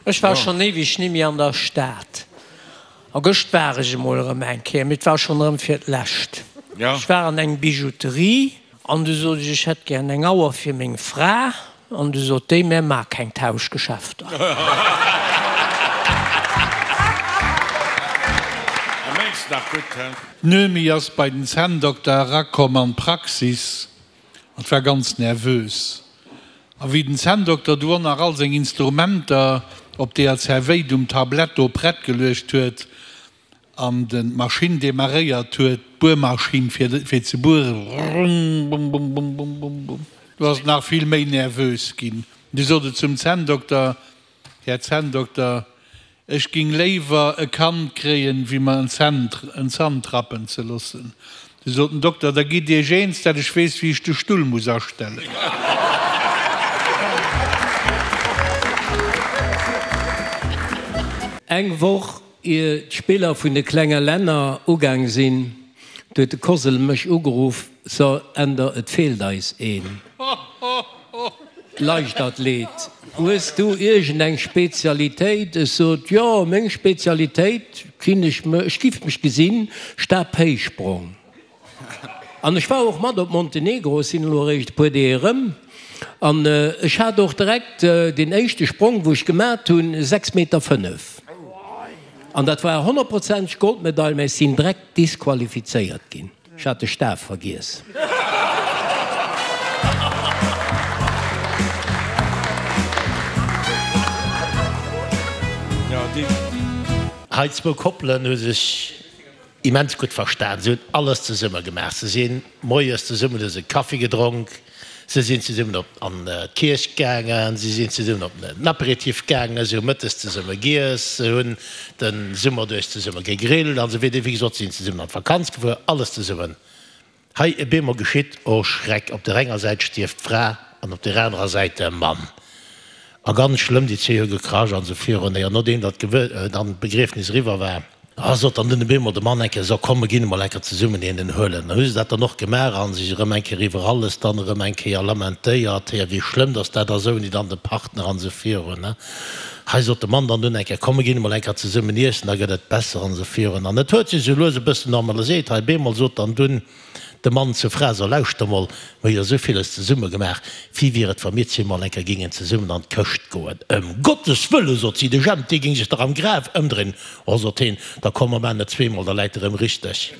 Ech war schonn éiweg nimmi an der Stad. A gëscht war ech emol erëm eng Kéier, mee et war schonn erëm fir d'lescht. Ech war an eng Bijouterie an du sot ech, ech hätt gären eng Auer fir meng Fra. An du sot déi, mär maa keng Tauschgeschäfter. D'Noemi ass bei den Zänndokter erakomm an d'Praxis an war ganz nervös. A wéi den Zänndokter du och nach all seng Instrumenter op deeër Zerwéit um Tablett do prett geluecht huet an den d'Maschinn demaréiert huet, d'Buermaschinn fir fir ze bueren, rrumbumbumbumbumbumbum, du ass et nach vill méi nervös ginn. Du sot et zum Zänndokter, Här Zänndokter, ech ging léiwer e Kand kréien, wéi mer en en Zant rappen ze loossen. Du sot den Dokter, Da gitt Iech eens, dat ech weess, wéi ech de Stull muss astellen. Eng Woch ier d'Spiller vun de klenge Länner ugaang sinn, huet de Kosel mech ugeruff, So Änder, et feelt eis een Leichtathlet. Hues du iergend eng Spezialitéit? Ech sot, Jo, meng Spezialitéit, kinn ech, ech giff mech gesinn, Stabhéichsprong. An ech war och mat op Montenegro, ech sinn elo eréischt e puer Deeg erëm, an ech hat och direkt deen éischte Sprong, wou ech gemat hunn, 6 Meter 5. An dat war honnertprozenteg Goldmedail, mä ech sinn direkt disqualifizéiert ginn. Ech hat de Staf vergiess. Hei zwou Koppelen hu sech immens gutt verstan. Se hunn alles zesumme gemaach. Se sinn moies zesummen, hu se Kaffi gedronk, se sinn zesummen op an d'Kierch gaangen, se sinn zesummen op den Aperitif gaangen, se hu mëttes zesumme giess, se hunn de Summer duerch zesumme gegrillt an esou weider. Wéi gesot, se sinn zesummen an d'Vakanz gefuer, alles zesummen. Hei e beemol geschitt, oh Schreck, op der enger Säit stierft d'Fra an op der anerer Säit de Mann. A ganz schlëmm, déi zwee hu gekrasch an esou virun. Jo, nodeem datt dann d'Begriefnis eriwwer war, ah, sot dann dunn e beemol de Mann eng Kéier, So, komm, mer ginn emol eng Kéier zesummen een huelen. Dann hu se dat dann och gemaach a sech erëm eng Kéier iwwer alles dann erëm eng Kéier lamentéiert, héier, wéi schlëmm datt dat ass ouni dann de Partner an esou virun. Hei sot de Mann dann dunn eng Kéier, Komm, mer ginn emol eng Kéier zesummen iessen, da gëtt et besser an esou virun. An et huet sech esou lues e bëssen normaliséiert. Hei bemol sot dann dunn de Mann zur Fra, So, lauschter mol, mer hu jo esou villes zesumme gemaach, wéi wier et, wa mir zwee mol eng Kéier géingen zesummen an d'Këscht goen? Ëm Gottes Wëlle, sot si, de Jemp, dee géing sech dach am Graf ëmdréinen. Oh, sot heen, da komm, mer maachen et zweemol, da läit e rëm richteg.